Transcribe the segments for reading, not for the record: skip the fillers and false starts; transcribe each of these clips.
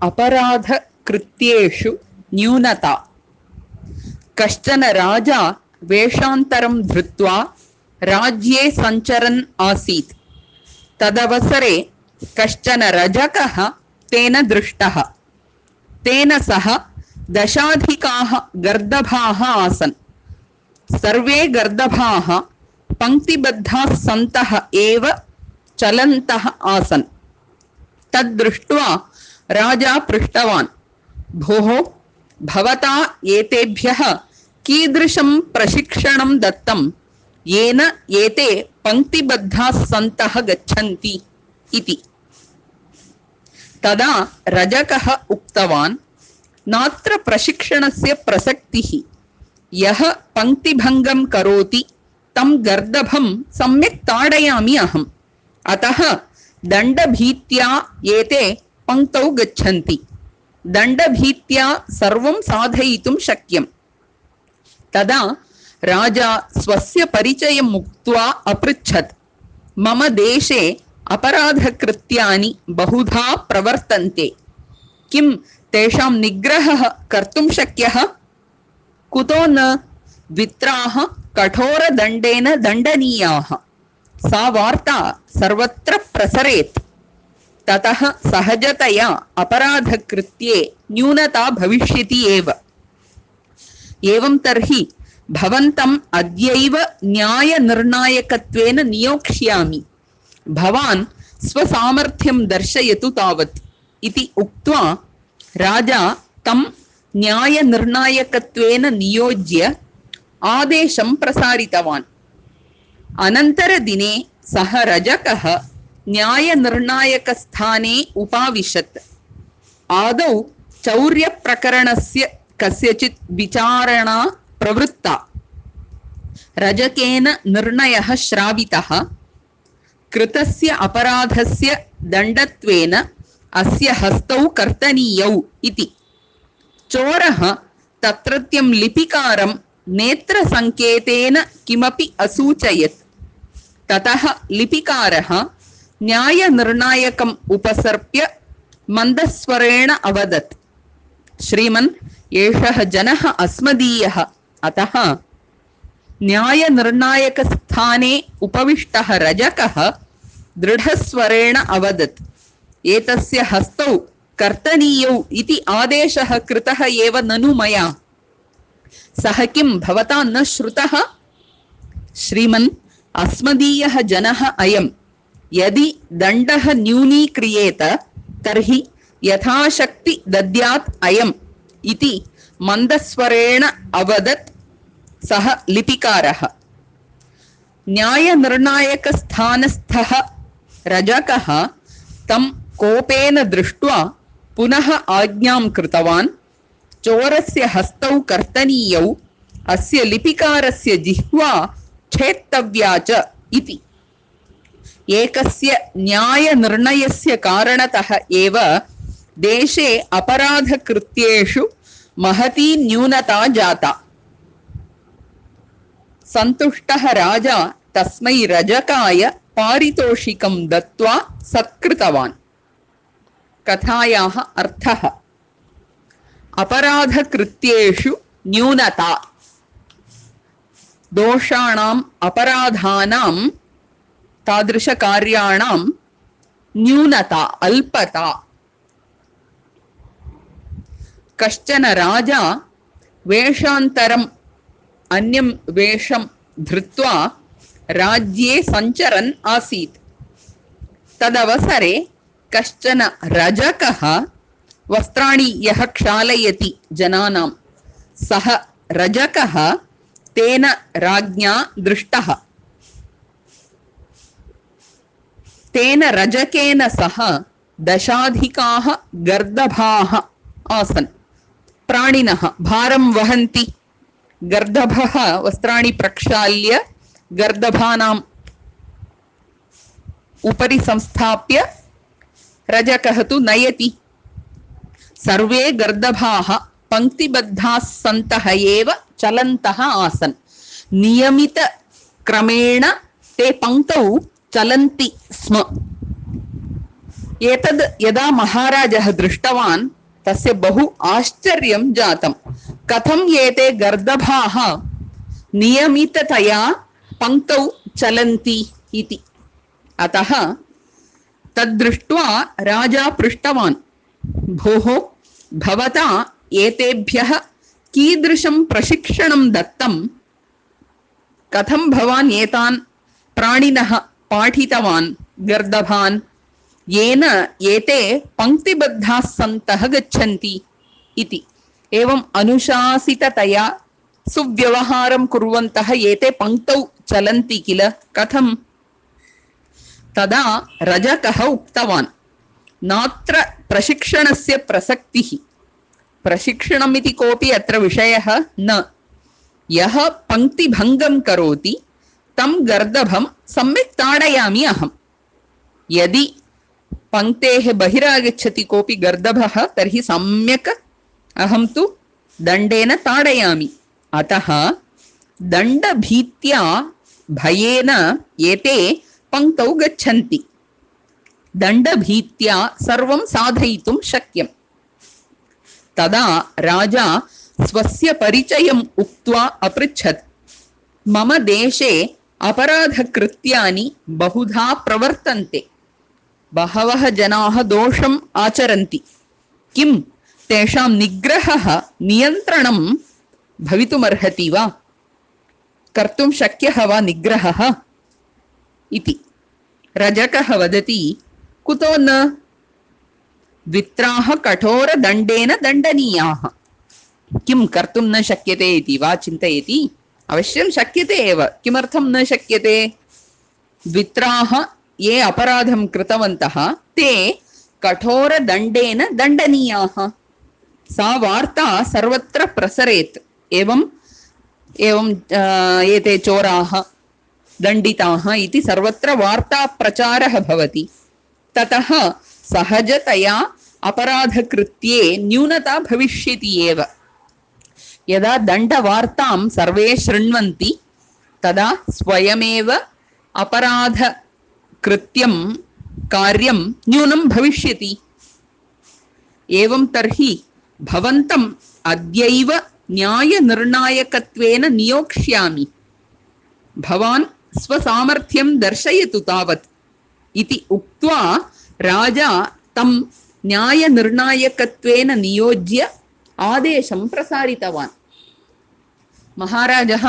अपराधकृत्येषु न्यूनता। कश्चन राजा वेषान्तरं धृत्वा राज्ये सञ्चरन् आसीत्। तदवसरे कश्चन रजकः तेन दृष्टः। तेन सह दशाधिकाः गर्दभाः आसन्। सर्वे गर्दभाः पङ्क्तिबद्धाः सन्तः एव चलन्तः आसन्। तद्दृष्ट्वा राजा पृष्टवान्, भोः, भवता एतेभ्यः कीदृशं प्रशिक्षणं दत्तं येन एते पङ्क्तिबद्धाः सन्तः गच्छन्ति इति। तदा रजकः उक्तवान्, नात्र प्रशिक्षणस्य प्रसक्तिः। यः पङ्क्तिभङ्गं करोति तं गर्दभं सम्यक् ताडयामि अहम्। अतः दण्डभीत्या एते पङ्क्तौ गच्छन्ति। दण्डभीत्या सर्वं साधयितुं शक्यम्। तदा राजा स्वस्य परिचयम् उक्त्वा अपृच्छत्, मम देशे अपराधकृत्यानि बहुधा प्रवर्तन्ते। किं तेषां निग्रहः कर्तुं शक्यः? कुतो न? द्वित्राः कठोरदण्डेन दण्डनीयाः। सा वार्ता सर्वत्र प्रसरेत्। ततः सहजतया अपराधकृत्ये न्यूनता भविष्यति एव। एवं तर्हि भवन्तम् अद्यैव न्यायनिर्णायकत्वेन नियोक्ष्यामि। भवान् स्वसामर्थ्यं दर्शयतु तावत् इति उक्त्वा राजा तं न्यायनिर्णायकत्वेन नियोज्य आदेशं प्रसारितवान्। अनन्तरदिने सः रजकः न्यायनिर्णायकस्थाने उपाविशत्। आदौ चौर्यप्रकरणस्य कस्यचित् विचारणा प्रवृत्ता। रजकेन निर्णयः श्रावितः। कृतस्य अपराधस्य दण्डत्वेन अस्य हस्तौ कर्तनीयौ इति। चोरः तत्रत्यं लिपिकारं नेत्रसङ्केतेन किमपि असूचयत्। ततः लिपिकारः न्यायनिर्णायकम् उपसर्प्य मन्दस्वरेण अवदत्, श्रीमन्, एषः जनः अस्मदीयः। अतः न्यायनिर्णायकस्थाने उपविष्टः रजकः दृढस्वरेण अवदत्, एतस्य हस्तौ कर्तनीयौ इति आदेशः कृतः एव ननु मया। सः किं भवता न श्रुतः? श्रीमन्, अस्मदीयः जनः अयम्। यदि दण्डः न्यूनीक्रियेत तर्हि यथाशक्ति दद्यात् अयम् इति मन्दस्वरेण अवदत् सः लिपिकारः। न्यायनिर्णायकस्थानस्थः रजकः तं कोपेन दृष्ट्वा पुनः आज्ञां कृतवान्, चोरस्य हस्तौ कर्तनीयौ, अस्य लिपिकारस्य जिह्वा छेत्तव्या च इति। एकस्य न्यायनिर्णयस्य कारणतः एव देशे अपराधकृत्येषु महती न्यूनता जाता। सन्तुष्टः राजा तस्मै रजकाय पारितोषिकं दत्त्वा सत्कृतवान्। कथायाः अर्थः: अपराधकृत्येषु न्यूनता। दोषाणाम् अपराधानां तादृशकार्याणां न्यूनता, अल्पता। कश्चन राजा वेषान्तरम् अन्यं वेषं धृत्वा राज्ये सञ्चरन् आसीत्। तदवसरे कश्चन रजकः वस्त्राणि यः क्षालयति जनानां, सः रजकः तेन राज्ञा दृष्टः। तेन रजकेन सह दशाधिकाः गर्दभाः आसन्। प्राणिनः भारं वहन्ति। गर्दभः वस्त्राणि प्रक्षाल्य गर्दभानाम् उपरि संस्थाप्य रजकः तु नयति। सर्वे गर्दभाः पङ्क्तिबद्धाः सन्तः एव चलन्तः आसन्। नियमितक्रमेण ते पङ्क्तौ चलन्ति स्म। एतद् यदा महाराजः दृष्टवान् तस्य बहु आश्चर्यं जातं। कथं एते गर्दभाः नियमिततया पङ्क्तौ चलन्ति इति। अतः तद्दृष्ट्वा राजा पृष्टवान्, भोः भवता एतेभ्यः कीदृशं प्रशिक्षणं दत्तं? कथं भवान् एतान् प्राणिनः पाठितवान् गर्दभान्, येन एते पङ्क्तिबद्धाः सन्तः गच्छन्ति इति। एवम् अनुशासिततया सुव्यवहारं कुर्वन्तः एते पङ्क्तौ चलन्ति किल, कथं? तदा रजकः उक्तवान्, नात्र प्रशिक्षणस्य प्रसक्तिः। प्रशिक्षणमिति कोऽपि अत्र विषयः न। यः पङ्क्तिभङ्गं करोति तं गर्दभं सम्यक् ताडयामि अहम्। यदि पङ्क्तेः बहिरागच्छति कोऽपि गर्दभः तर्हि सम्यक् अहं तु दण्डेन ताडयामि। अतः दण्डभीत्या भयेन एते पङ्क्तौ गच्छन्ति। दण्डभीत्या सर्वं साधयितुं शक्यम्। तदा राजा स्वस्य परिचयम् उक्त्वा अपृच्छत्, मम देशे अपराधकृत्यानि बहुधा प्रवर्तन्ते। बहवः जनाः दोषम् आचरन्ति। किं तेषां निग्रहः, नियन्त्रणं भवितुमर्हति वा? कर्तुं शक्यः वा निग्रहः इति। रजकः वदति, कुतो न? द्वित्राः कठोरदण्डेन दण्डनीयाः। किं कर्तुं न शक्यते इति वा चिन्तयति? अवश्यं शक्यते एव। किमर्थं न शक्यते? द्वित्राः ये अपराधं कृतवन्तः ते कठोरदण्डेन दण्डनीयाः। सा वार्ता सर्वत्र प्रसरेत्। एवं एते चोराः दण्डिताः इति सर्वत्र वार्ता प्रचारः भवति। ततः सहजतया अपराधकृत्ये न्यूनता भविष्यति एव। यदा दण्डवार्तां सर्वे शृण्वन्ति तदा स्वयमेव अपराधकृत्यं कार्यं न्यूनं भविष्यति। एवं तर्हि भवन्तम् अद्यैव न्यायनिर्णायकत्वेन नियोक्ष्यामि। भवान् स्वसामर्थ्यं दर्शयतु तावत् इति उक्त्वा राजा तं न्यायनिर्णायकत्वेन नियोज्य आदेशं प्रसारितवान्। महाराजः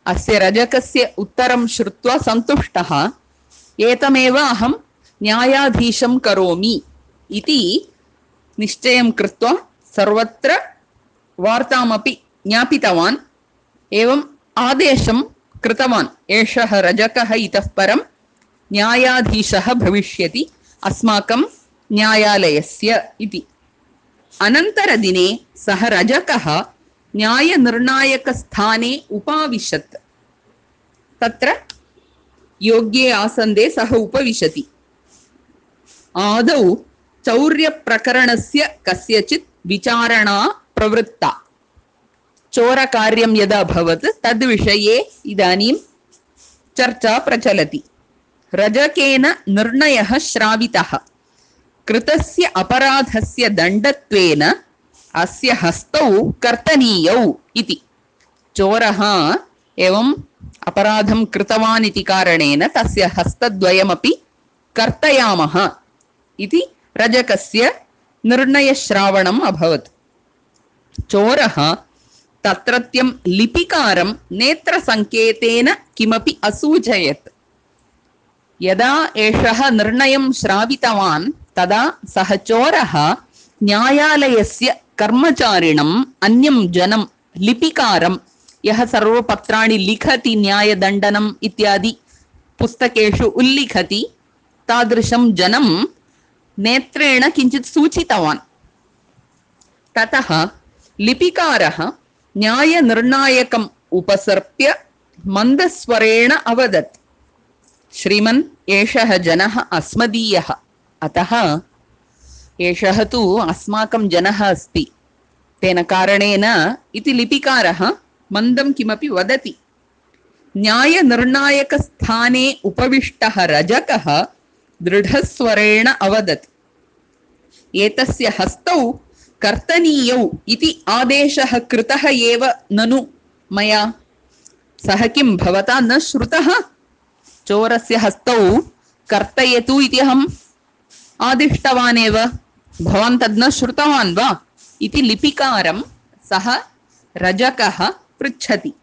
अस्य रजकस्य उत्तरं श्रुत्वा सन्तुष्टः। एतमेव अहं न्यायाधीशं करोमि इति निश्चयं कृत्वा सर्वत्र वार्तामपि ज्ञापितवान्। एवम् आदेशं कृतवान्, एषः रजकः इतः परं न्यायाधीशः भविष्यति अस्माकं न्यायालयस्य इति। अनन्तरदिने सः रजकः न्यायनिर्णायकस्थाने उपाविशत्। तत्र योग्ये आसन्दे सः उपविशति। आदौ चौर्यप्रकरणस्य कस्यचित् विचारणा प्रवृत्ता। चोरकार्यं यदा भवत् तद्विषये इदानीं चर्चा प्रचलति। रजकेन निर्णयः श्रावितः। कृतस्य अपराधस्य दण्डत्वेन अस्य हस्तौ कर्तनीयौ इति। चोरः एवम् अपराधं कृतवान् इति कारणेन तस्य हस्तद्वयमपि कर्तयामः इति रजकस्य निर्णयश्रावणम् अभवत्। चोरः तत्रत्यं लिपिकारं नेत्रसङ्केतेन किमपि असूचयत्। यदा एषः निर्णयं श्रावितवान् तदा सः चोरः न्यायालयस्य कर्मचारिणम् अन्यं जनं लिपिकारं, यः सर्वपत्राणि लिखति न्यायदण्डनम् इत्यादि पुस्तकेषु उल्लिखति, तादृशं जनं नेत्रेण किञ्चित् सूचितवान्। ततः लिपिकारः न्यायनिर्णायकम् उपसर्प्य मन्दस्वरेण अवदत्, श्रीमन् एषः जनः अस्मदीयः, अतः एषः तु अस्माकं जनः अस्ति, तेन कारणेन इति लिपिकारः मन्दं किमपि वदति। न्यायनिर्णायकस्थाने उपविष्टः रजकः दृढस्वरेण अवदत्, एतस्य हस्तौ कर्तनीयौ इति आदेशः कृतः एव ननु मया। सः किं भवता न श्रुतः? चोरस्य हस्तौ कर्तयतु इति अहम् आदिष्टवान् एव, भवान् तद् न श्रुतवान् वा इति लिपिकारं सः रजकः पृच्छति।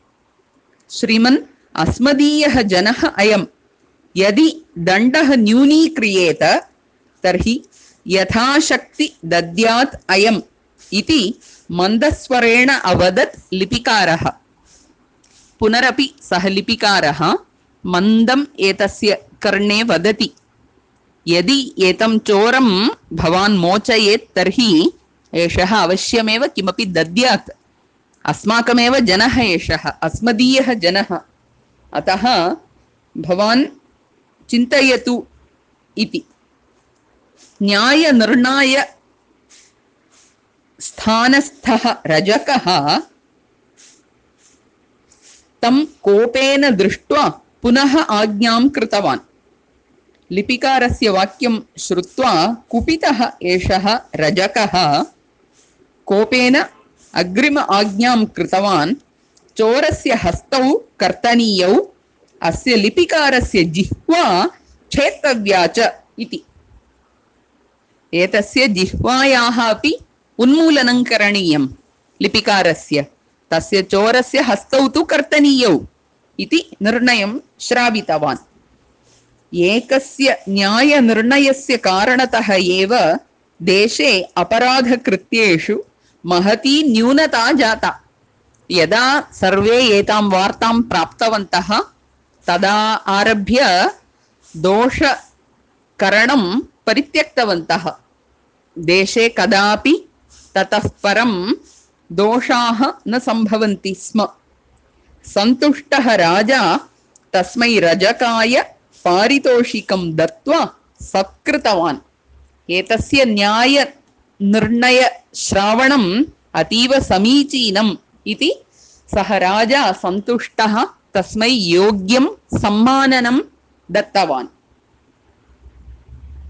श्रीमन्, अस्मदीयः जनः अयं, यदि दण्डः न्यूनीक्रियेत तर्हि यथाशक्ति दद्यात् अयम् इति मन्दस्वरेण अवदत् लिपिकारः। पुनरपि सः लिपिकारः मन्दम् एतस्य कर्णे वदति, यदि एतं चोरं भवान् मोचयेत् तर्हि एषः अवश्यमेव किमपि दद्यात्। अस्माकमेव जनः एषः, अस्मदीयः जनः, अतः भवान् चिन्तयतु इति। न्यायनिर्णाय स्थानस्थः रजकः तं कोपेन दृष्ट्वा पुनः आज्ञां कृतवान्। लिपिकारस्य वाक्यं श्रुत्वा कुपितः एषः रजकः कोपेन अग्रिम आज्ञां कृतवान्। चोरस्य हस्तौ कर्तनीयौ, अस्य लिपिकारस्य जिह्वा छेत्तव्या च इति। एतस्य जिह्वायाः अपि उन्मूलनं करणीयं लिपिकारस्य। तस्य चोरस्य हस्तौ तु कर्तनीयौ इति निर्णयं श्रावितवान्। एकस्य न्यायनिर्णयस्य कारणतः एव देशे अपराधकृत्येषु महती न्यूनता जाता। यदा सर्वे एतां वार्तां प्राप्तवन्तः तदा आरभ्य दोषकरणं परित्यक्तवन्तः। देशे कदापि ततः परं दोषाः न सम्भवन्ति स्म। सन्तुष्टः राजा तस्मै रजकाय पारितोषिकं दत्त्वा सत्कृतवान्। एतस्य न्यायनिर्णयश्रावणम् अतीव समीचीनम् इति सः राजा सन्तुष्टः तस्मै योग्यं सम्माननं दत्तवान्।